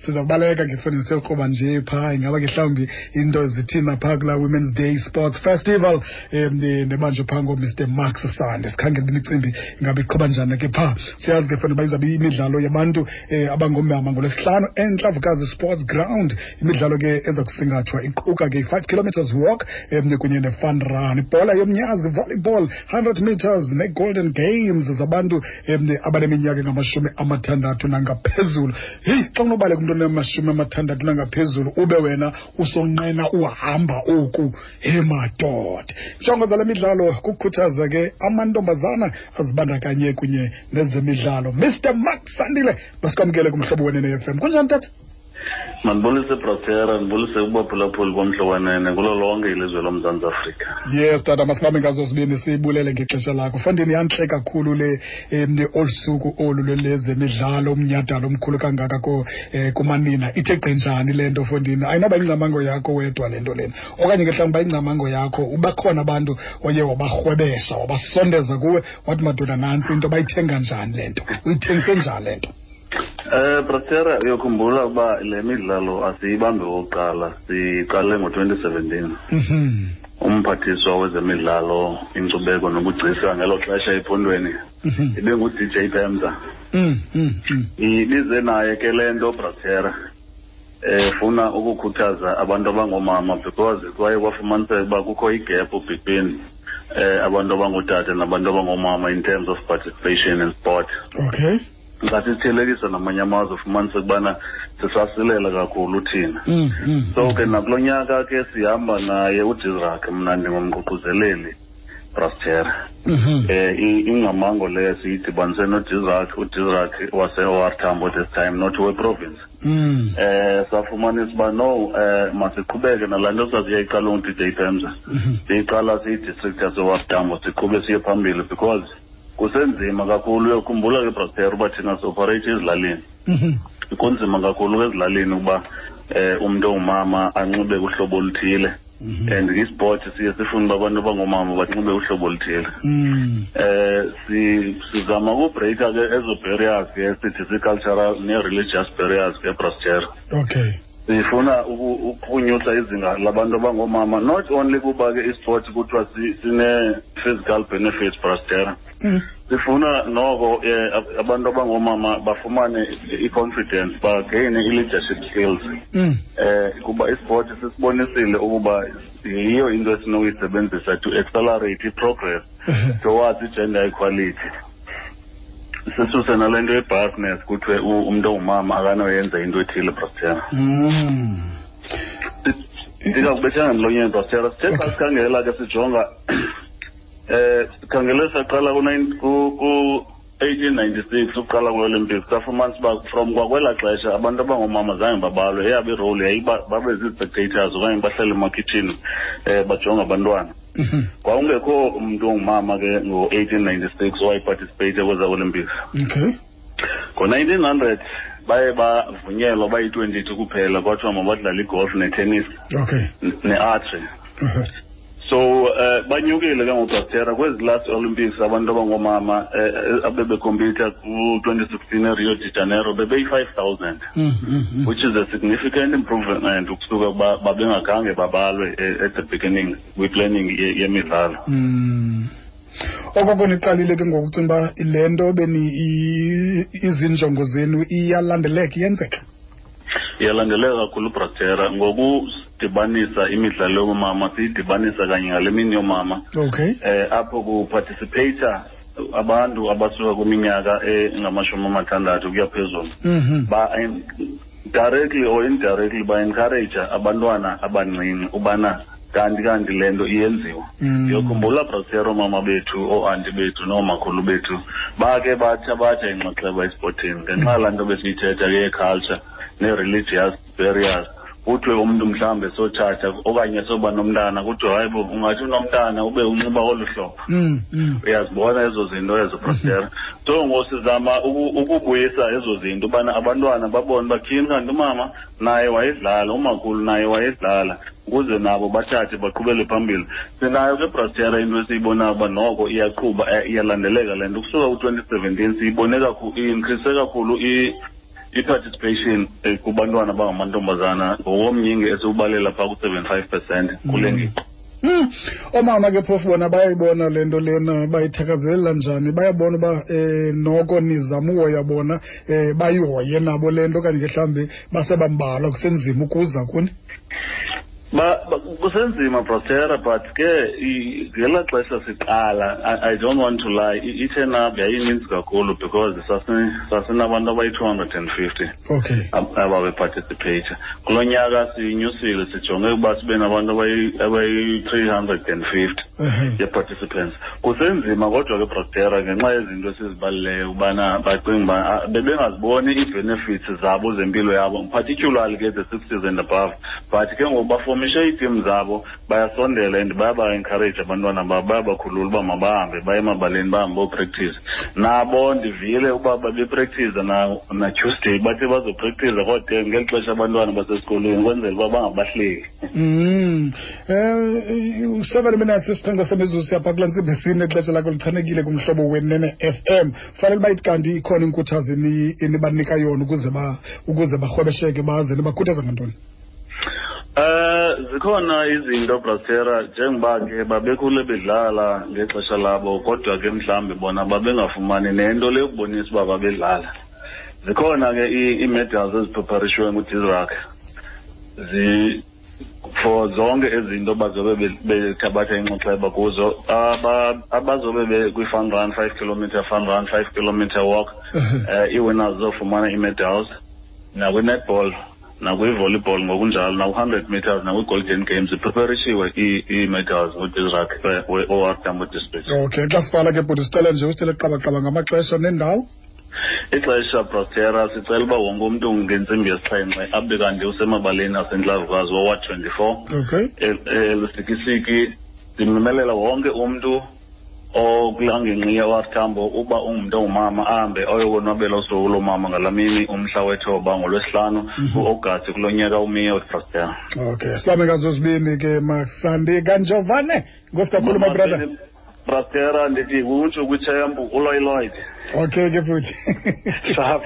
Siza kubaleka ke fondini, siyokroba nje phaa. Ingaba ke mhlawumbi into zithina phaa kulaa Women's Day Sports Festival nebanjwe phaa ngoMr Max Sande? Sikhangela imicimbi ingaba iqhuba njani ke phaa. Siyazi ke fondini uba izawube imidlalo yabantu abangomama ngoLwesihlanu eNtlavukazi Sports Ground. Imidlalo ke eza kusingathwa iquka ke i-5 kilometers walk kunye ne-fun run, ibhola yomnyazi, volleyball, 100 meters ne-golden games zabantu abaneminyaka engama-60 nangaphezulu. Heyi, xa unobaleka umntu onama-60 nangaphezulu, ube wena usonqena uhamba oku, he madoda. Injongo zale midlalo kukukhuthaza ke amantombazana azibandakanye kunye nezemidlalo. Mr Mark Sandile, masikwamkele kuMhlobo Wenene FM. Kunjani, tata? Mandibulise, Brotera, ndibulise kubaphulaphuli boMhlobo Wenene kulo lonke ilizwe loMzantsi Afrika. Yes tata, masibambe ngazo zibini, siyibulele ngexesha lakho. Fondini, yantle kakhulu le olu suku olu lwezemidlalo, umnyhadala omkhulu kangaka ko kumanina. Ithe gqi njani le nto, fondini? Ayinoba ingcamango yakho wedwa le nto lena, okanye ke mhlawumbi ingcamango yakho ubakhona abantu oye wabarhwebesha, wabasondeza kuwe, wathi madoda nantsi into, bayithenga njani le nto, uyithengise njani le nto? Brotera, uyokhumbula ukuba le midlalo asiyibambi okokuqala, siqale ngo-2017. Umphathiswa wezemidlalo, inkcubeko nobugcisa ngelo xesha ephondweni ibengu-DJ Pemza. Ibize naye ke le nto, Brotera, efuna ukukhuthaza abantu abangoomama, because kwaye kwafumaniseka uba kukho igap between abantu abangootata nabantu abangoomama in terms of participation in sport. Xa sithelekisa namanye amazwe, ufumaniseka ubana sisasilela kakhulu thina. So ke nakulo nyaka ke sihamba naye uDisrak, mna ndingumququzeleli, Brastera. Ingcamango leyo siyidibanise noDisrak, uDisrak wase-OR Tambo this time, not we-province. Safumanisa uba no, masiqhubeke nalaa nto sasiyayiqala ungu-DJ Pemza. Siyiqala siyi-district yase-OR Tambo, siqhube siye phambili because kusenzima kakhulu. Uyokhumbula ke, Brastera, uba thina si-operate ezilalini. Kunzima kakhulu ezilalini ukuba umntu ongumama anxibe uhlobo oluthile. And isport siye sifune uba abantu abangoomama banxibe uhlobo oluthile. Sizama ukubreaka ke ezo barriers ke sithi zii-cultural nee-religious barriers ke, Brastera. Sifuna ukunyusa izinga labantu abangoomama, not only kuba ke isport kuthiwa sine-physical benefits, Brastera. Sifuna noko abantu abangoomama bafumane i-confidence, bagaine i-leadership skills. Kuba isport sisibonisile ukuba yiyo into esinokuyisebenzisa to accelerate i-progress towards i-gender equality. Sisuse nale nto ye-biasness, kuthiwe umntu ongumama akanoyenza into ethile, Brastera. Ndingakubethanga emlonyeni, Brastera. Sithe xa sikhangela ke, sijonga, sikhangele saqala ku-1896 ukuqala kwe-Olympics, safumanisa uba from kwakwelaa xesha abantu abangoomama zange babalwe. Eyabo irole yayiba babe zii-spectators okanye bahlale emakhitshini bajonge abantwana. Kwakungekho umntu ongumama ke ngo-1896 owayeparticipate kweza Olympics. Ngo-1900 baye bavunyelwa bayi-22 kuphela, kwathiwa mabadlale igolf netennis ne-archery. So banyukile ke ngoBrastera kwezi last Olympics. Abantu abangoomama abebecompeta ku-2016 eRio de Janeiro bebeyi-5,000, which is a significant improvement ukusuka kuba babengakhange babalwe at the beginning kwi-planning yemidlalo. Okoko niqalile ke ngoku, ucinga uba le nto beni izinjongo zenu iyalandeleka, iyenzeka? Iyalandeleka kakhulu, Brastera, ngokudibanisa imidlalo yoomama, siyidibanisa kanye ngale mini yoomama. Apho kuparticipata abantu abasuka kwiminyaka engama-60 ukuya phezulu. Ba directly or indirectly ba-encourage abantwana abancinci ubana kanti le nto iyenziwa. Ndiyokhumbula, Brastera, oomama bethu, ooanti bethu noomakhulu bethu bake bathabatha inxaxheba esipotini ngenxa yalaa nto besiyithetha ke ye-culture nee-religious barriers. Kuthiwe umntu mhlawumbe sotshata okanye soba nomntana, kuthiwe hayi bo, ungathi unomntana ube unxiba olu hlobo. Uyazibona ezo zinto ezo, Brastera. So ngoku sizama ukubuyisa ezo zinto, ubana abantwana babone uba tyhini, kanti umama naye wayedlala, umakhulu naye wayedlala, ukuze nabo bathathe baqhubele phambili. Sinayo ke, Brastera, into esiyibonayo uba noko iyaqhuba, iyalandeleka le nto. Ukusuka ku-2017 siyibone kakhulu, i-increase kakhulu. I-participation kubantwana abangamantombazana ngokomnyinge esiwubalela phaa ku-75% kule ngingqi. Oomama ke phofu bona bayayibona le nto lena, bayithakazelela njani? Bayabona uba noko nizama uhoya bona, bayihoye nabo le nto, okanye ke mhlawumbi basebambalwa kusenzima ukuza kuni? Kusenzima, Brotera, but ke ngelaa xesha siqala, I don't want to lie, i-turn up yayininzi kakhulu because sasinabantu abayi-250 ababeparticipate. Kulo nyaka sinyusile, sijonge ukuba sibe nabantu abayi-350 ye-participants. Kusenzima kodwa ke, Brotera, ngenxa yezinto esizibalileyo ubana bacinga uba bebengaziboni ii-benefits zabo zempilo yabo, particularly ke the 60s and above. But ke ngoku bafomishe iitim zabo, bayasondela and bayaba-encourage abantwana babo, bayabakhulula uba mabahambe baye emabaleni, bahambe bopractice. Nabo ndivile uba babepractice na Tuesday, bathe bazopractice kodwa ngeli xesha abantwana basesikolweni, ukwenzela uba bangabahleki. 7 minutes isixhenxe semizuzu siyapha kulaa ntsimbi yesine. Ixesha lakho lichanekile kumhlobo Wenene FM. Fanele uba ithi kanti ikhona inkuthazo enibanika yona ukuze barhwebesheke baze. Nibakhuthaza ngantoni? Zikhona izinto, Brastera, njengoba ke babekhule bedlala ngexesha labo, kodwa ke mhlawumbi bona babengafumani nento le yokubonisa uba babedlala. Zikhona ke ii-medals ezipreparishiwe nguDisrac zi for zonke ezinto bazobe bethabatha inxaxheba kuzo. Abazobe kwi-fun run, 5 kilometer fun run, 5 kilometer walk, ii-winners zizofumana ii-medals, nakwi-netball, nakwi-volleyball ngokunjalo, naku-100 meters, nakwi-golden games. Zipreparishiwe ii-medals nguDisrac we-OR Tambo District. Okay, xa sivala ke bhuti, sicela nje usithele qabaqaba ngamaxesha nendawo. Ixesha, Prostera, sicela uba wonke umntu ngentsimbi yesixhenxe abe kanti usemabaleni aseNtlavukazi woWard 24 eLusikisiki. Ndimemelela wonke umntu okulaa ngingqi ye-OR Tambo uba ungumntu ongumama ahambe ayokonwabela usuku loomama ngalaa mini, umhla wethoba, ngoLwesihlanu, kuAugasti kulo nyaka umiyo, Prostera. Okay, sibambe ngazo zibini ke, Masandi kaNjovane. Nkosi kakhulu, my brother. Brastera, ndithi utsho kwitshempu uloyiloyide. Okay ke futhi. Sharp.